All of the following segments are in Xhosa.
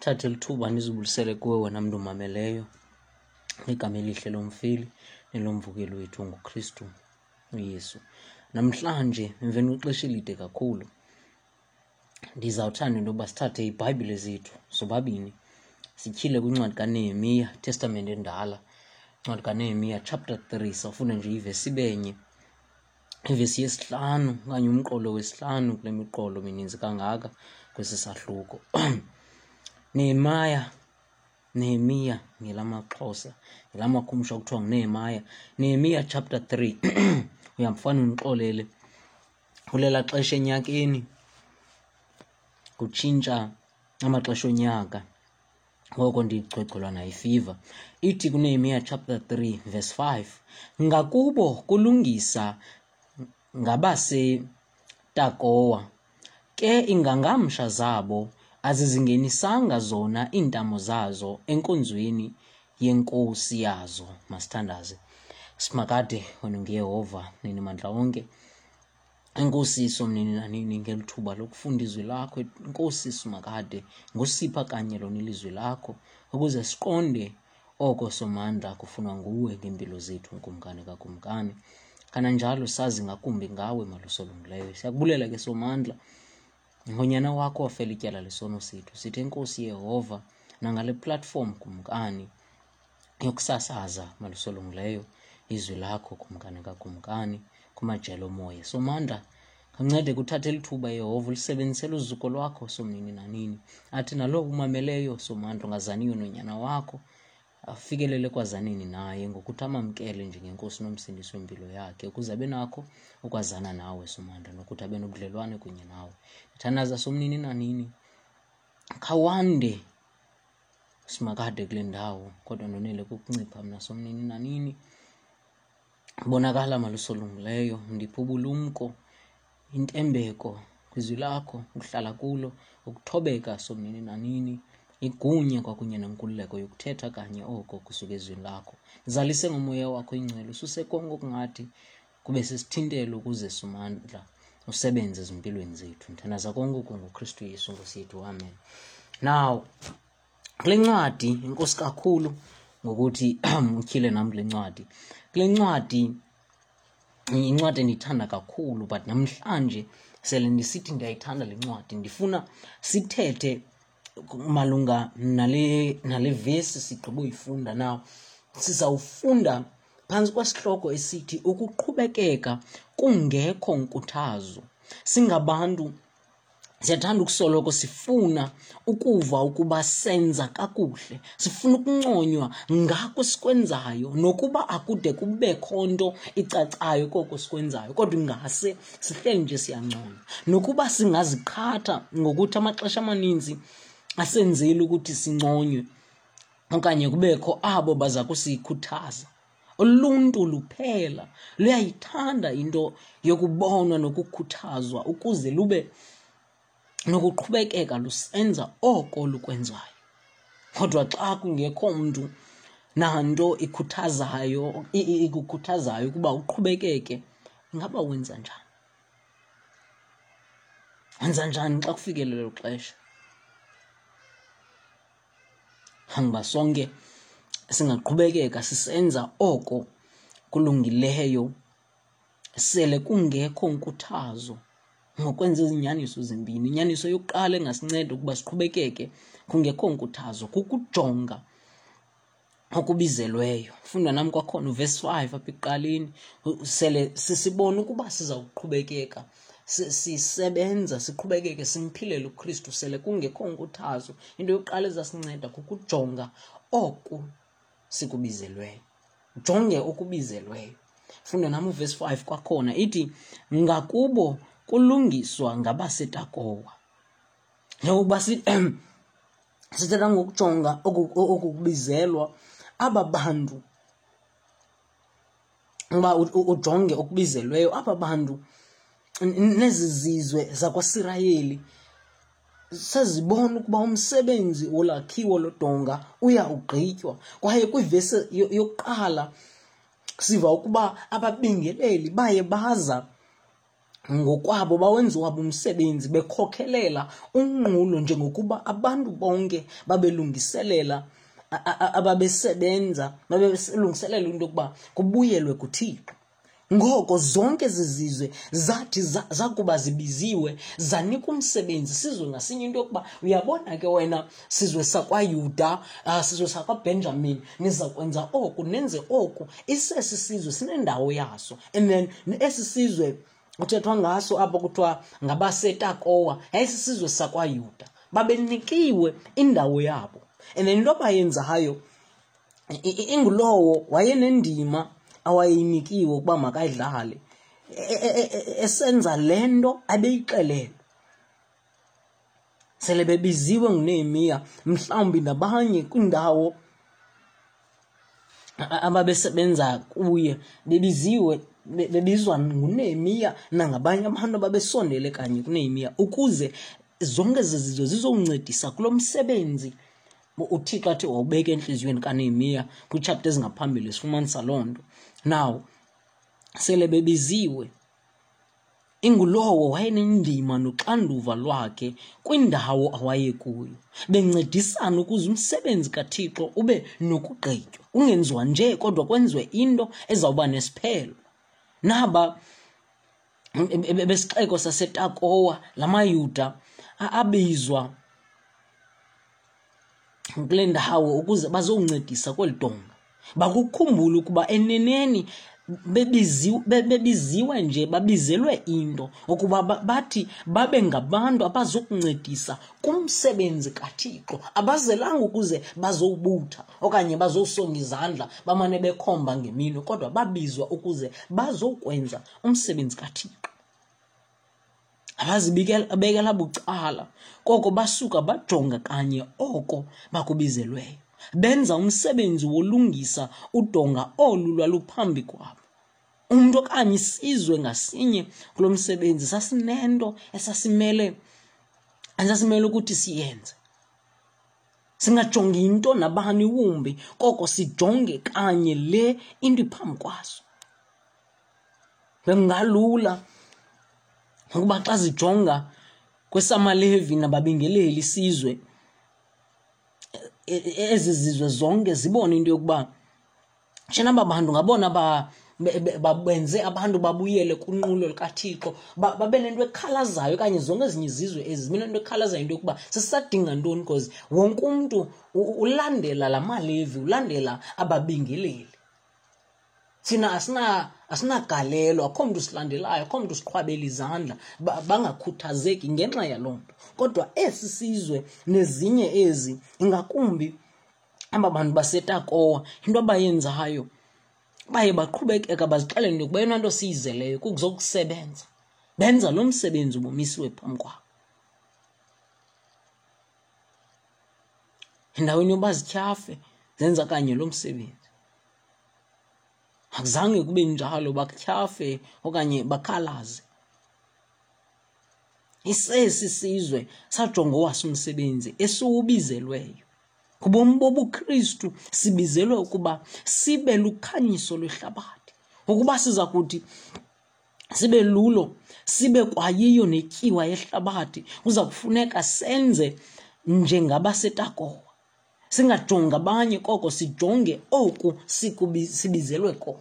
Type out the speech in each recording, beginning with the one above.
Thathe lithuba ndizibulisele kuwe wena mntu umameleyo ngegama elihle lomfeli nelomvukeli wethu nguKristu uYesu. Namhlanje emveni kwexesha elide kakhulu ndizawuthanda into yoba sithathe iiBhayibhile zethu sobabini sityhile kwincwadi kaNehemiya, Testamente Endala, incwadi kaNehemiya chapter 3. Sawufunda nje ivesi ibenye, ivesi yesihlanu okanye umqolo wesihlanu kule miqolo mininzi kangaka kwesi sahluko. Nehemiah, Nehemiya ngelamaXhosa, ngelamakhumsha kuthiwa nguNehemiah. Nehemiya chapter 3. Uyamfana undixolele, kulela xesha enyakeni kutshintsha amaxesha onyaka, ngoko ndigcwegcwelwa nayifiva. Ithi kuNehemiya chapter 3 verse 5, ngakubo kulungisa ngabaseTakowa, ke ingangamsha zabo azizingenisanga zona iintamo zazo enkonzweni yenkosi yazo. Masithandaze. Simakade, wena nguYehova nini mandla onke. Enkosi Somnini nanini ngeli thuba lokufunda izwi lakho. Enkosi Simakade ngosipha kanye lona ilizwi lakho ukuze siqonde oko Somandla kufunwa nguwe ngeempilo zethu, Nkumkani kaKumkani. Kananjalo sazi ngakumbi ngawe, Malusolungileyo. Siyakubulela ke Somandla ngonyana wakho wafela ityala lesono sethu. Sithi enkosi Yehova nangale platform Kumkani yokusasaza malusolungileyo izwi lakho Kumkani kaKumkani kumajelo omoya. Somandla, kancede kuthathe lithuba Yehova ulisebenzisele uzuko lwakho Somnini nanini. Athi nalowo umameleyo Somandla ongazaniyo nonyana wakho afikelele kwazanini naye ngokuthi amamkele njengenkosi nomsindisi wempilo yakhe ukuze abe nakho ukwazana nawe Somandla nokuthi abe nobudlelwane kunye nawe. Ndithandaza Somnini nanini, khawande Simakade kule ndawo, kodwa ndonele kukuncipha mna Somnini nanini. Bonakala malusolungileyo, ndiphe ubulumko, intembeko kwizwi lakho, ukuhlala kulo, ukuthobeka Somnini nanini, igunya kwakunye nenkululeko yokuthetha kanye oko kusuka ezwini lakho. Zalise ngomoya wakho ingcwele, ususe konke okungathi kube sisithintelo ukuze Somandla usebenze ezimpilweni zethu. Ndithandaza konke oku ngoKristu Yesu Nkosi yethu, amen. Now, kule ncwadi, inkosi kakhulu ngokuthi utyhile nam kule ncwadi. Kule ncwadi, incwadi endiyithanda kakhulu, but namhlanje sele ndisithi ndiyayithanda le ncwadi, ndifuna sithethe malunga nale vesi sigqiba uyifunda. Now, sizawufunda phantsi kwesihloko esithi ukuqhubekeka kungekho nkuthazo. Singabantu siyathanda ukusoloko sifuna ukuva ukuba senza kakuhle, sifuna ukunconywa ngako sikwenzayo, nokuba akude kubekho nto icacayo koko sikwenzayo, kodwa ingase sihleli nje siyanconywa. Nokuba singaziqhatha ngokuthi amaxesha amaninzi asenzeli ukuthi sinconywe okanye kubekho abo baza kusikhuthaza. Uluntu luphela luyayithanda into yokubonwa nokukhuthazwa ukuze lube nokuqhubekeka lusenza oko lukwenzayo. Kodwa xa kungekho mntu nanto ikhuthazayo, ikukhuthazayo ukuba uqhubekeke, ingaba wenza njani? Wenza njani xa kufikele lelo xesha? Hamba sonke singaqhubekeka sisenza oko kulungileyo sele kungekho nkuthazo ngokwenza izinyaniso zimbini. Inyaniso yokuqala engasinceda ukuba siqhubekeke kungekho nkuthazo kukujonga okubizelweyo. Funda nam kwakhona uvesi 5 apha ekuqaleni, sele sisibona ukuba siza kuqhubekeka sisebenza, siqhubekeke simphilele uKristu sele kungekho nkuthazo. Into yokuqala ezasinceda kukujonga oku sikubizelweyo. Jonge okubizelweyo. Funda nam uvesi 5 kwakhona, ithi ngakubo kulungiswa ngabaseTakowa. Njengokuba sithetha ngokujonga okukubizelwa, aba bantu, uba ujonge okubizelweyo, aba bantu nezi zizwe zakwaSirayeli sezibona ukuba umsebenzi wolakhiwo lodonga uya ugqitywa. Kwaye kwivesi yokuqala siva ukuba ababingeleli baye baza Ngokwabo bawenza wabo umsebenzi bekhokhelela unqulo njengokuba abantu bonke babelungiselela ababesebenza babelungiselela into yokuba kubuyelwe kuThixo. Ngoko zonke ezi zizwe zathi zakuba zibiziwe zanikwa umsebenzi sizwe ngasinye into yokuba uyabona ke wena sizwe sakwaYuda, sizwe sakwaBhenjamin, niza kwenza oku nenze oku. Isesi sizwe sinendawo yaso. And then esi sizwe kuthethwa ngaso apho kuthiwa ngabaseTakowa yayisisizwe sakwaYuda. Babenikiwe indawo yabo. And then into abayenzayo ingulowo wayenendima awayeyinikiwe ukuba makayidlale esenza le nto abeyixelelwe. Sele bebiziwe nguNehemiya mhlawumbi nabanye kwiindawo ababesebenza kuye bebiziwe bebizwa nguNehemiya nangabanye abantu ababesondele kanye kuNehemiya ukuze zonke ezi zizwe zizoncedisa kulo msebenzi uThixo athi wawubeka entliziyweni kaNehemiya kwiitshapta ezingaphambili sifumanisa loo nto. Now sele bebiziwe ingulowo wayenendima noxanduva lwakhe kwindawo awayekuyo, bencedisana ukuze umsebenzi kaThixo ube nokugqitywa, ungenziwa nje kodwa kwenziwe into ezawuba nesiphelo. Naba besixeko saseTakowa, la maYuda abizwa kule ndawo ukuze bazoncedisa kweli donga. Bakukhumbula ukuba eneneni bebiziwe nje, babizelwe into ukuba bathi babe ngabantu abazokuncedisa kumsebenzi kaThixo. Abazelanga ukuze bazowubutha okanye bazosonga izandla bamane bekhomba ngeminwe, kodwa babizwa ukuze bazokwenza umsebenzi kaThixo. Abazibekela bucala, koko basuka bajonga kanye oko bakubizelweyo. Benza umsebenzi wolungisa udonga olu lwaluphambi kwabo. Umntu okanye isizwe ngasinye kulo msebenzi sasinento esasimele ukuthi siyenze. Singajongi into nabani wumbi, koko sijonge kanye le into iphambi kwaso. Bekungalula ukuba xa zijonga kwesamaLevi nababingeleli isizwe, ezi zizwe zonke zibone into yokuba tshena aba bantu ngabona benze abantu babuyele kunqulo lukaThixo, babe nento ekhalazayo okanye zonke ezinye izizwe ezi zibe nento ekhalazayo into yokuba sisadinga ntoni, because wonke umntu ulandela la maLevi, ulandela ababingeleli. Thina asinagalelo, akho mntu silandelayo, akho mntu siqhwabela izandla, bangakhuthazeki ngenxa yaloo nto. Kodwa esi sizwe nezinye ezi, ingakumbi aba bantu baseTakowa, into abayenzayo baye baqhubekeka bazixelele into yokuba eyona nto siyizeleyo kukuzokusebenza. Benza lo msebenzi ubumisiwe phambi kwabo. Endaweni yoba zityhafe, zenza kanye lo msebenzi. Akuzange kube njalo batyhafe okanye bakhalaze. Isesi sizwe sajonga owaso umsebenzi esiwubizelweyo. Kubomi bobuKristu sibizelwe ukuba sibe lukhanyiso lwehlabathi. Ukuba siza kuthi sibe lulo, sibe kwayiyo netyiwa yehlabathi, kuza kufuneka senze njengabaseTakowa. Singajongi abanye, koko sijonge oku sibizelwe kona,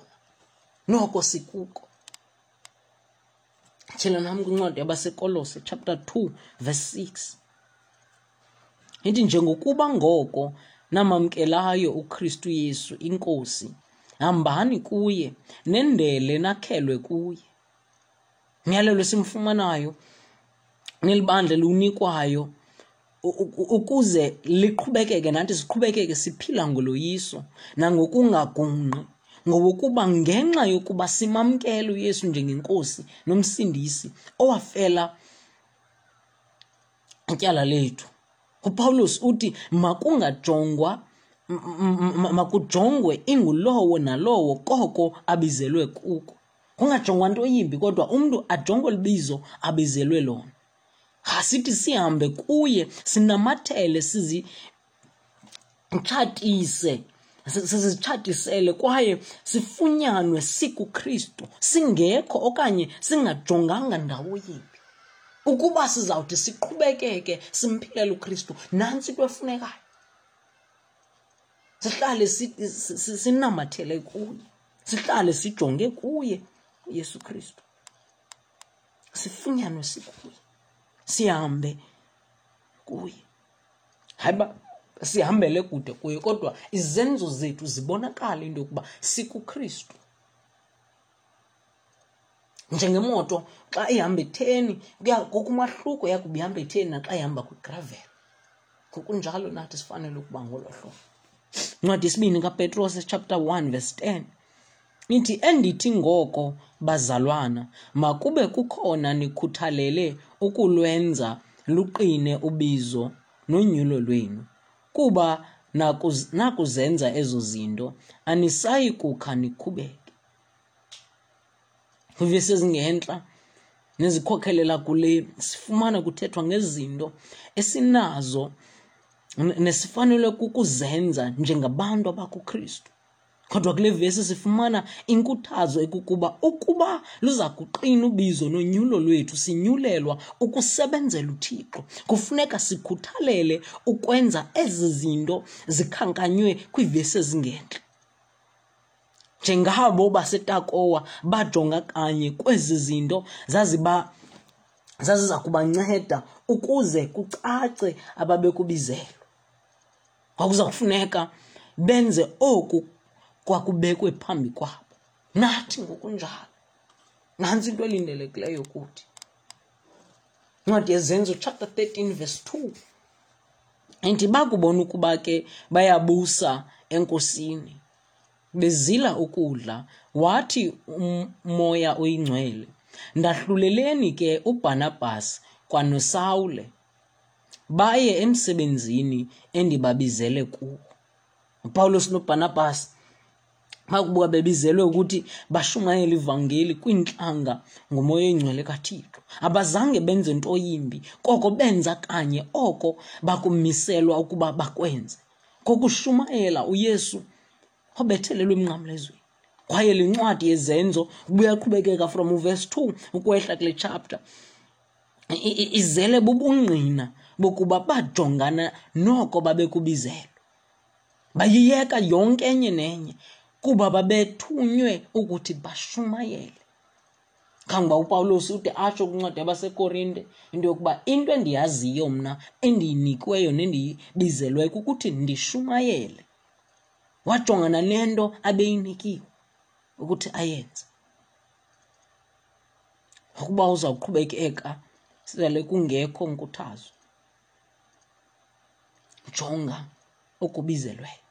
noko sikuko. Tyhila nam kwincwadi yabaseKolose chapter 2 verse 6. Ithi, njengokuba ngoko namamkelayo uKristu Yesu iNkosi, hambani kuye, nendele nakhelwe kuye. Umyalelo esimfumanayo nelibandla eliwunikwayo ukuze liqhubekeke nathi siqhubekeke siphila ngoloyiso nangokungagungqi, ngowokuba ngenxa yokuba simamkele uYesu njengeNkosi noMsindisi owafela ityala lethu. UPawulos uthi makungajongwa, makujongwe ingulowo nalowo koko abizelwe kuko. Kungajongwa nto yimbi, kodwa umntu ajongwe libizo abizelwe lona. Asithi sihambe kuye, sinamathele, sizitshatise Sizitshatisele kwaye sifunyanwe sikuKristu, singekho okanye singajonganga ndawo yimbi. Ukuba sizawuthi siqhubekeke simphilele uKristu, nantsi into efunekayo. Sihlale sinamathele kuye, sihlale sijonge kuye uYesu Kristu. Sifunyanwe sikuye, sihambe kuye. Hayi uba sihambele kude kuye, kodwa izenzo zethu zibonakala into yokuba sikuKristu. Njengemoto xa ihamba etheni, kukho umahluko yakuba ihamba etheni naxa ihamba kwigravel. Ngokunjalo nathi sifanele ukuba ngolo hlobo. Incwadi yesibini kaPetros chapter 1 verse 10 ithi, endithi ngoko bazalwana, makube kukhona nikhuthalele ukulwenza luqine ubizo nonyulo lwenu, kuba nakuzenza ezo zinto anisayi kukha nikhubeke. Kwivesi ezingentla nezikhokhelela kule sifumana kuthethwa ngezinto esinazo nesifanelwe kukuzenza njengabantu abakuKristu. Kodwa kule vesi sifumana inkuthazo ekukuba ukuba luza kuqina ubizo nonyulo lwethu, sinyulelwa ukusebenzela uThixo. Kufuneka sikhuthalele ukwenza ezi zinto zikhankanywe kwiivesi ezingentla. Njengabo baseTakowa bajonga kanye kwezi zinto zaziza kubanceda ukuze kucace ababekubizelwe. Kwakuza kufuneka benze oku kwakubekwe phambi kwabo. Nathi ngokunjalo, nantsi into elindelekileyo kuthi. Incwadi yeZenzo chapter 13 verse 2 ithi, bakubona ukuba ke bayabusa eNkosini, bezila ukudla, wathi uMoya oyiNgcwele, ndahluleleni ke uBharnabhas kwanoSawule, baye emsebenzini endibabizele kuwo. uPawulos noBharnabhas bakuba bebizelwe ukuthi bashumayele ivangeli kwiintlanga ngoMoya oyiNgcwele kaThixo, abazange benze nto yimbi, koko benza kanye oko bakumiselwa ukuba bakwenze, kokushumayela uYesu obethelelwe emnqamlezweni. Kwaye le ncwadi yeZenzo ubuyaqhubekeka from uverse 2 ukwehla kule chapter, izele bubungqina bokuba bajongana noko babekubizelwe. Bayiyeka yonke enye nenye kuba babethunywe ukuthi bashumayele. Kangoba uPawulos ude atsho kwincwadi yabaseKorinte into yokuba into endiyaziyo mna endiyinikiweyo nendiyibizelweyo kukuthi ndishumayele. Wajongana nento abeyinikiwe ukuthi ayenze. Ukuba uzawuqhubekeka sele kungekho nkuthazo, jonga okubizelweyo.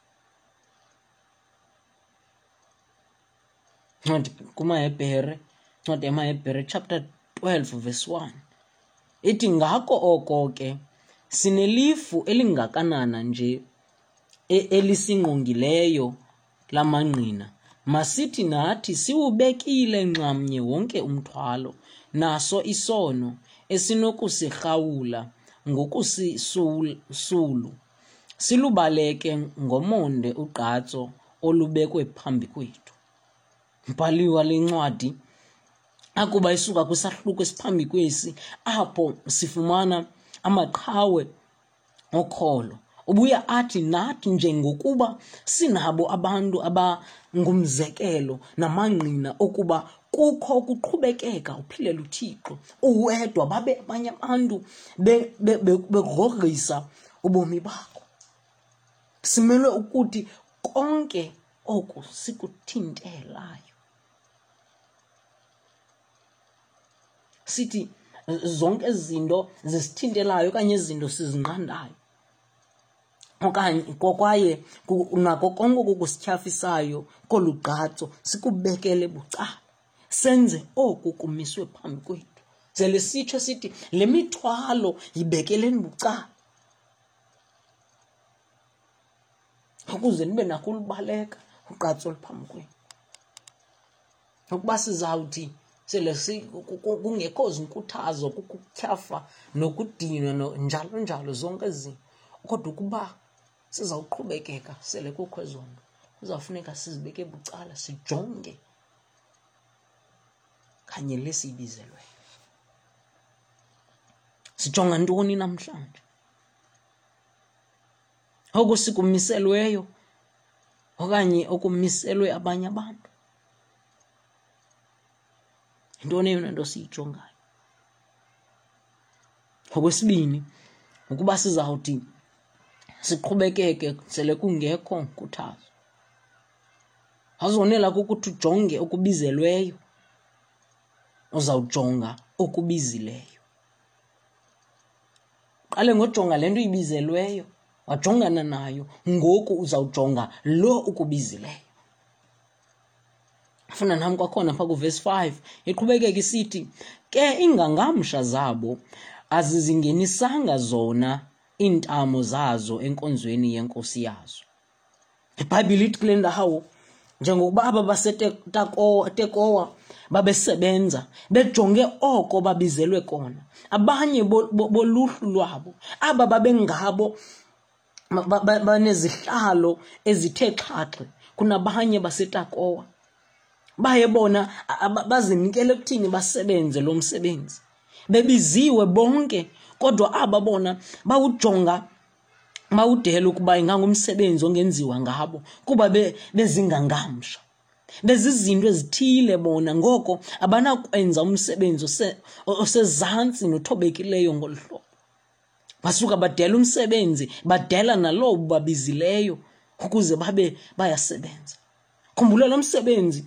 Ncwadi kumaHebhere, ncwadi yamaHebhere chapter 12 verse 1 ithi, ngako oko ke sinelifu elingakanana nje elisingqongileyo lamangqina, masithi nathi siwubekile nxamnye wonke umthwalo naso isono esinokusirhawula ngokusisulu, silubaleke ngomonde ugqatso olubekwe phambi kwethu. Mbhali wale ncwadi akuba isuka kwisahluko esiphambi kwesi apho sifumana amaqhawe okholo, ubuya athi nathi njengokuba sinabo abantu abangumzekelo namangqina okuba kukho ukuqhubekeka uphilela uThixo uwedwa, babe abanye abantu begrogrisa ubomi bakho. Simelwe ukuthi konke oku sikuthintelayo. Sithi zonke ezi zinto zisithintelayo okanye izinto sizinqandayo okanye kwaye nako konke okukusityhafisayo kolu gqatso sikubekele bucala, senze oku kumiswe phambi kwethu. Sele sitsho sithi le mithwalo yibekeleni bucala ukuze nibe nako ulubaleka ugqatso oluphambi kwenu. Ukuba sizawuthi sele kungekho zinkuthazo, kukutyhafa nokudinwa njalo njalo zonke ezi zinto, kodwa ukuba sizawuqhubekeka sele kukho ezo nto, Kuzawufuneka sizibeke bucala sijonge kanye le siyibizelweyo. Sijonga ntoni namhlanje? Oku sikumiselweyo okanye okumiselwe abanye abantu? Yintoni eyona nto siyijongayo? Okwesibini, ukuba sizawuthi siqhubekeke sele kungekho nkuthazo. Awuzonela kukuthi ujonge okubizelweyo, uzawujonga okubizileyo. Qale ngojonga le nto uyibizelweyo, wajongana nayo, ngoku uzawujonga lo ukubizileyo. Funda nam kwakhona phaa kuvesi 5 iqhubekeka isithi ke iingangamsha zabo azizingenisanga zona iintamo zazo enkonzweni yenkosi yazo. IBhayibhile ithi kule ndawo njengokuba aba baseTekowa babesebenza bejonge oko babizelwe kona, abanye boluhlu lwabo aba babengabo banezihlalo ezithe xhaxhe kunabanye baseTakowa baye bona bazinikele ekuthini basebenze lo msebenzi bebiziwe bonke kodwa aba bona bawujonga bawudela ukuba ingangumsebenzi ongenziwa ngabo kuba bezingangamsha bezizinto ezithile bona ngoko abanakwenza umsebenzi osezantsi nothobekileyo ngolu hlobo basuka badela umsebenzi badela nalowo babizileyo ukuze babe bayasebenza khumbula lo msebenzi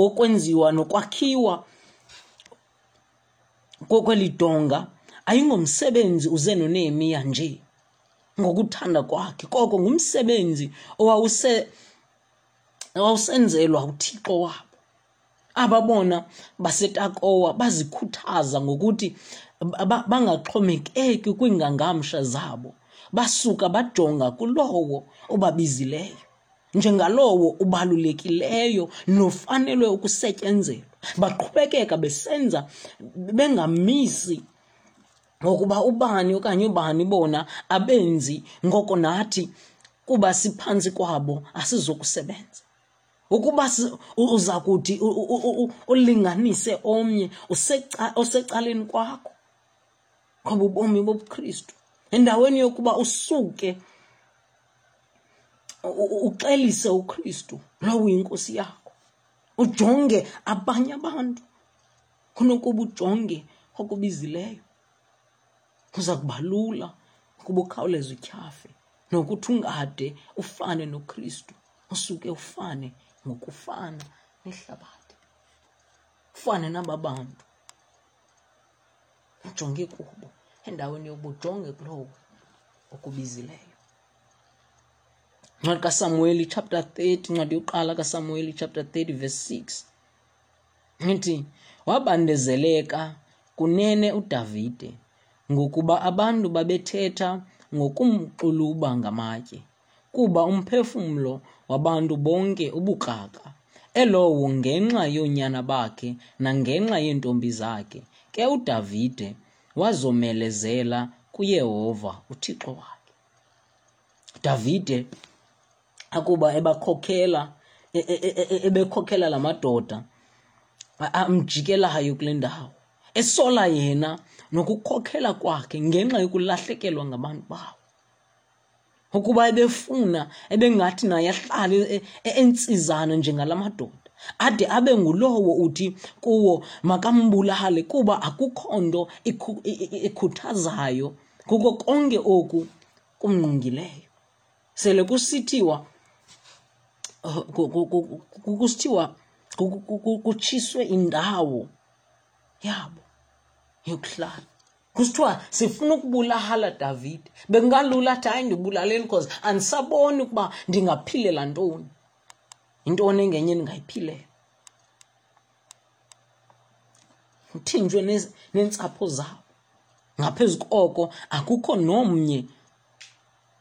okwenziwa nokwakhiwa kweli donga ayingomsebenzi uze noNehemiya nje ngokuthanda kwakhe koko ngumsebenzi owawuse owawusenzelwa uThixo wabo Aba bona baseTakowa bazikhuthaza ngokuthi bangaxhomekeki kwiingangamsha zabo, basuka bajonga kulowo ubabizileyo njengalowo ubalulekileyo nofanelwe ukusetyenzelwa. Baqhubekeka besenza bengamisi ngokuba ubani okanye ubani bona abenzi, ngoko nathi kuba siphantsi kwabo asizokusebenza. Ukuba uza kuthi ulinganise omnye osecaleni kwakho ngoba ubomi bobuKristu endaweni yokuba usuke uxelise uKristu lowo uyinkosi yakho ujonge abanye abantu kunokuba ujonge okubizileyo kuza kuba lula ukuba ukhawuleze utyhafe nokuthi ungade ufane noKristu usuke ufane ngokufana nehlabathi ufane naba bantu ujonge kubo endaweni yokuba ujonge kulowo okubizileyo. Incwadi kaSamuweli chapter 30, incwadi yokuqala kaSamuweli chapter 30 verse 6 ithi wabandezeleka kunene uDavide ngokuba abantu babethetha ngokumxuluba ngamatye kuba umphefumlo wabantu bonke ubukrakra, elowo ngenxa yoonyana bakhe nangenxa yeentombi zakhe. Ke uDavide wazomelezela kuYehova uThixo wakhe. Davide akuba ebakhokela e, e, e, ebekhokela la madoda amjikelayo kule ndawo esola yena nokukhokhela kwakhe ngenxa yokulahlekelwa ngabantu bawo ukuba ebefuna ebengathi naye ahlale entsizana njengala madoda ade abe ngulowo uthi kuwo makambulale kuba akukho nto ikhuthazayo kuko konke oku kumngqongileyo sele kusithiwa kusithiwa kutshiswe indawo yabo yokuhlala kusithiwa sifuna ukubulala Davide bekungalula athi hayi ndibulaleni because andisaboni ukuba ndingaphilela ntoni yintoni engenye endingayiphilela uthinjwe neentsapho zabo ngaphezu koko akukho nomnye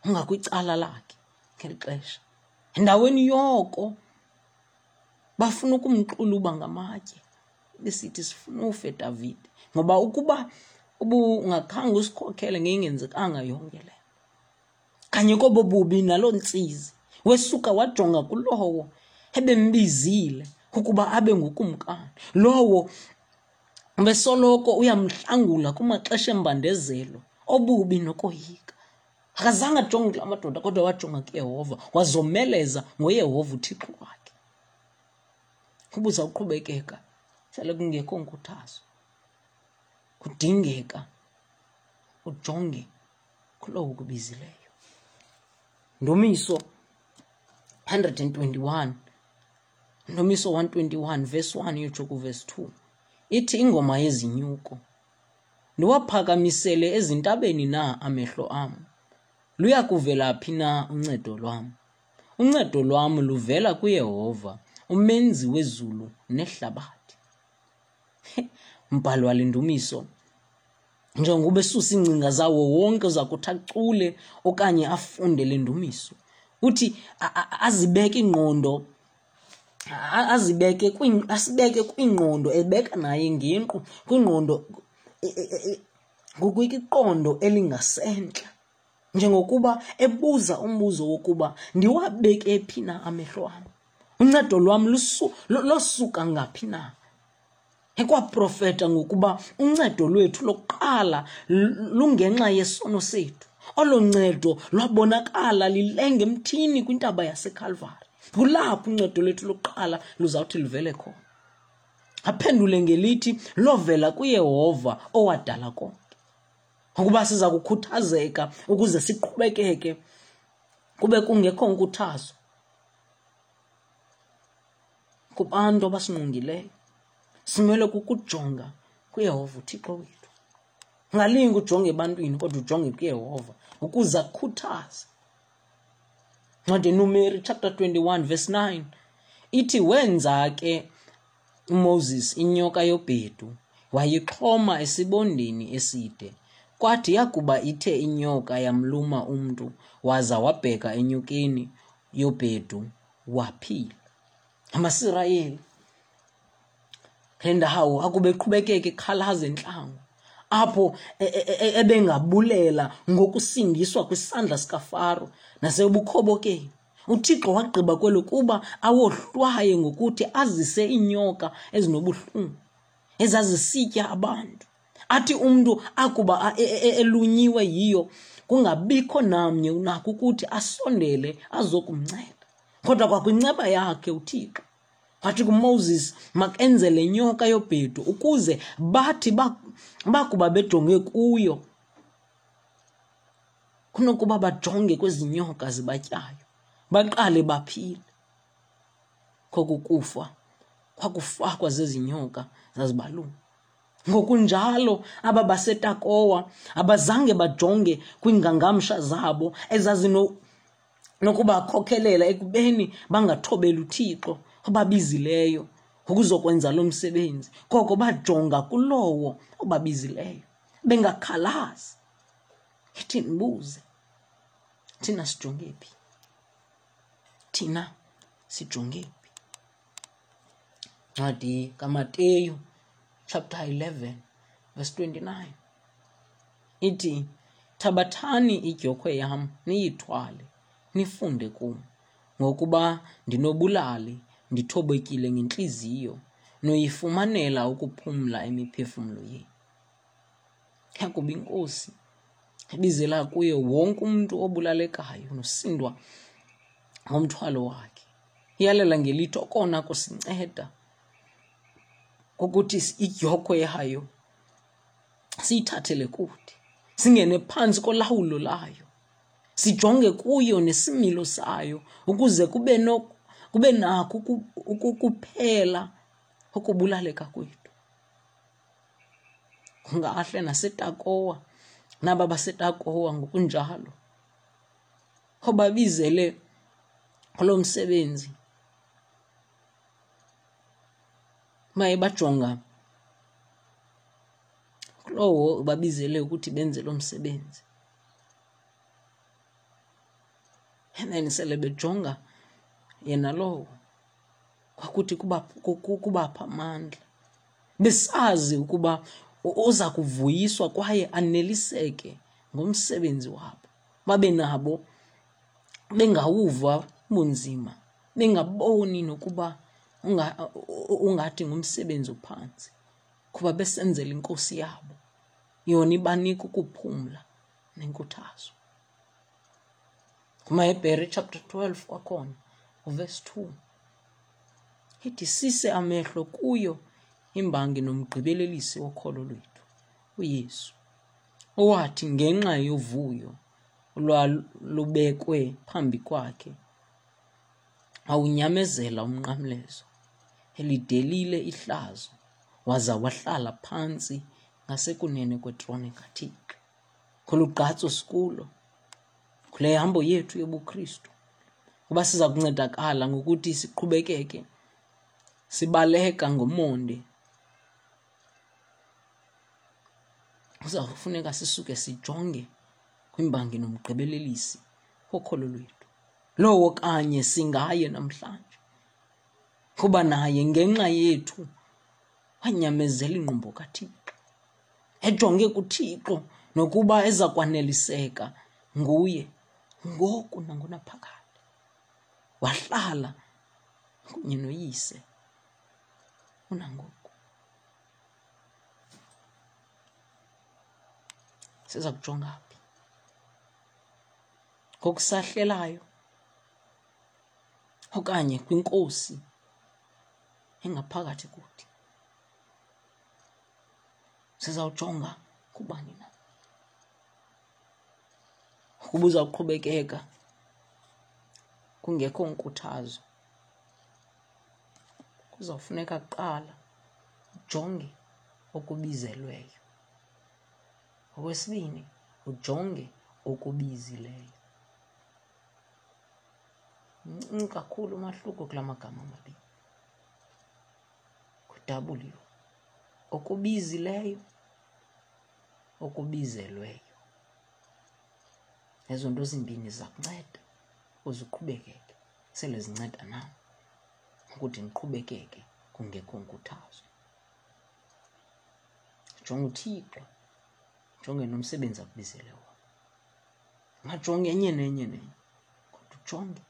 ongakwicala lakhe ngeli xesha endaweni yoko bafuna ukumxuluba ngamatye besithi sifuna ufe Davide ngoba ukuba ubungakhange usikhokhele ngeyingenzekanga yonke le kanye kobo bubi naloo ntsizi Wesuka wajonga kulowo ebembizile ukuba abe ngukumkani, lowo besoloko uyamhlangula kumaxesha embandezelo obubi nokoyika. Akazange ajonge kula madoda, kodwa wajonga kuYehova, wazomeleza ngoYehova uThixo wakhe. Ubuza uqhubekeka sele kungekho nkuthazo, kudingeka ujonge kulowo ukubizileyo. Ndumiso 121, Ndumiso 121 verse 1 uyotsho kuverse 2, ithi ingoma yezinyuko: Ndiwaphakamisele ezintabeni na amehlo am? Luya kuvela phi na uncedo lwam? Uncedo lwam luvela kuYehova, umenzi wezulu nehlabathi. Mbhalo wale ndumiso, njengoba esusa iingcinga zawo wonke uza kuthi acule okanye afunde le ndumiso, uthi azibeke ingqondo, azibeke, asibeke kwingqondo, ebeka naye ngenqu kwingqondo, ngokwiqondo elingasentla, njengokuba ebuza umbuzo wokuba ndiwabeke phi na amehlo am, uncedo lwam losuka ngaphi na. Ekwaprofeta ngokuba uncedo lwethu lokuqala lungenxa yesono sethu. Olo ncedo lwabonakala lilenga emthini kwintaba yaseKalvari. Kulapho uncedo lwethu lokuqala luzawuthi luvele khona. Aphendule ngelithi lovela kuYehova owadala konke. Ukuba siza kukhuthazeka ukuze siqhubekeke kube kungekho nkuthazo kubantu abasingqongileyo, simele kukujonga kuYehova uThixo wethu. Ungalingi ujonge ebantwini, kodwa ujonge kuYehova ukuze akukhuthaze. Ncwadi Numeri chapter 21 verse 9 ithi, wenza ke uMoses inyoka yobhedu, wayixhoma esibondeni eside. Kwathi yakuba ithe inyoka yamluma umntu, waza wabheka enyokeni yobhedu, waphila. AmaSirayeli le ndawo akube eqhubekeka ekhalaza entlango, apho ebengabulela ngokusindiswa kwisandla sikaFaro nasebukhobokeni. UThixo wagqiba kwelo kuba awohlwaye ngokuthi azise iinyoka ezinobuhlungu ezazisitya abantu. Athi umntu akuba elunyiwe yiyo, kungabikho namnye unako ukuthi asondele azokumnceda. Kodwa kwakwinceba yakhe uThixo wathi kuMoses makenze le nyoka yobhedu ukuze bathi bakuba bejonge kuyo, kunokuba bajonge kwezi nyoka zibatyayo, baqale baphile. Koku kufa kwakufakwa zezi nyoka zazibaluma. Ngokunjalo aba baseTakowa abazange bajonge kwiingangamsha zabo ezazinokubakhokhelela ekubeni bangathobeli uThixo obabizileyo ukuzokwenza lo msebenzi, koko bajonga kulowo obabizileyo bengakhalazi. Ithi ndibuze, thina sijonge phi? Thina sijonge phi? Ncwadi kaMateyu chapter 11 verse 29 ithi, thabathani idyokhwe yam niyithwale, nifunde kum, ngokuba ndinobulali, ndithobekile ngentliziyo, noyifumanela ukuphumla imiphefumlo yenu. Yakuba iNkosi ibizela kuye wonke umntu obulalekayo nosindwa ngomthwalo wakhe, iyalela ngelithi okona kusinceda kukuthi idyokhwe yayo siyithathele kude, singene phantsi kolawulo layo, sijonge kuyo nesimilo sayo ukuze kube nako ukuphela ukubulaleka kwethu. Kungahle naseTakowa, naba baseTakowa ngokunjalo obabizele kulo msebenzi, baye bajonga kulowo ubabizele ukuthi benze lo msebenzi, and then sele bejonga yena lowo kwakuthi kubapha amandla, besazi ukuba uza kuvuyiswa kwaye aneliseke ngomsebenzi wabo, babe nabo bengawuva Bunzima, bengaboni nokuba ungathi ngumsebenzi ophantsi, kuba besenzela inkosi yabo. Yona ibanika ukuphumla nenkuthazo. KumaHebhere chapter 12 kwakhona, uverse 2. Ithi sise amehlo kuyo imbangi nomgqibelelisi wokholo lwethu, uYesu, owathi ngenxa yovuyo olwalubekwe phambi kwakhe wawunyamezela umnqamlezo, elidelile ihlazo, waza wahlala phantsi ngasekunene kwetrone kaThixo. Kolu gqatso sikulo, kule hambo yethu yobuKristu, kuba siza kuncedakala ngokuthi siqhubekeke sibaleka ngomonde, kuza kufuneka sisuke sijonge kwimbangi nomgqibelelisi wokholo lwethu, lowo kanye singaye namhlanje, kuba naye ngenxa yethu wanyamezela ingqumbo kaThixo, ejonge kuThixo nokuba eza kwaneliseka nguye ngoku nangonaphakade. Wahlala kunye noYise unangoku. Siza kujonga phi? Ngokusahlelayo okanye kwinkosi engaphakathi kuthi? Sizawujonga kubani na? Ukuba uzawuqhubekeka kungekho nkuthazo, kuzawufuneka kuqala ujonge okubizelweyo. Okwesibini, ujonge okubizileyo. Mncinci kakhulu umahluko kula magama mabini. Ngu-W, okubizileyo, okubizelweyo. Ezo nto zimbini ziza kunceda uze uqhubekeke, sele zinceda nam ukuthi ndiqhubekeke kungekho nkuthazo. Jonga uThixo, jonge nomsebenzi akubizele wona. Ungajongi enye nenye nenye, kodwa ujonge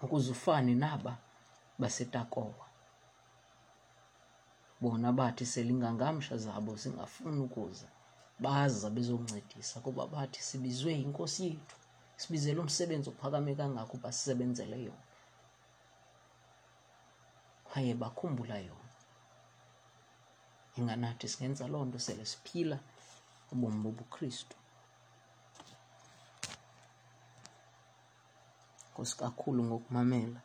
ukuze ufane naba baseTakowa. Bona bathi selingangamsha zabo zingafuni ukuza, baza bezoncedisa kuba bathi sibizwe yinkosi yethu, sibizele umsebenzi ophakame kangaka uba sisebenzele yona. Kwaye bakhumbula yona. Inganathi singenza loo nto sele siphila ubomi bobuKristu. Nkosi kakhulu ngokumamela.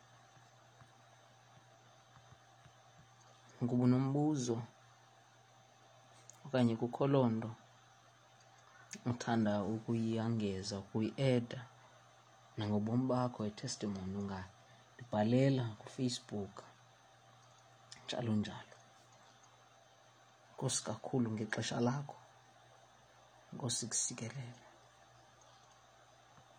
Ukuba unombuzo okanye kukho loo nto uthanda ukuyongeza, ukuyi-eda nangobomi bakho, i-testimony, ungandibhalela kuFacebook, njalo njalo. Nkosi kakhulu ngexesha lakho. Nkosi kusikelele.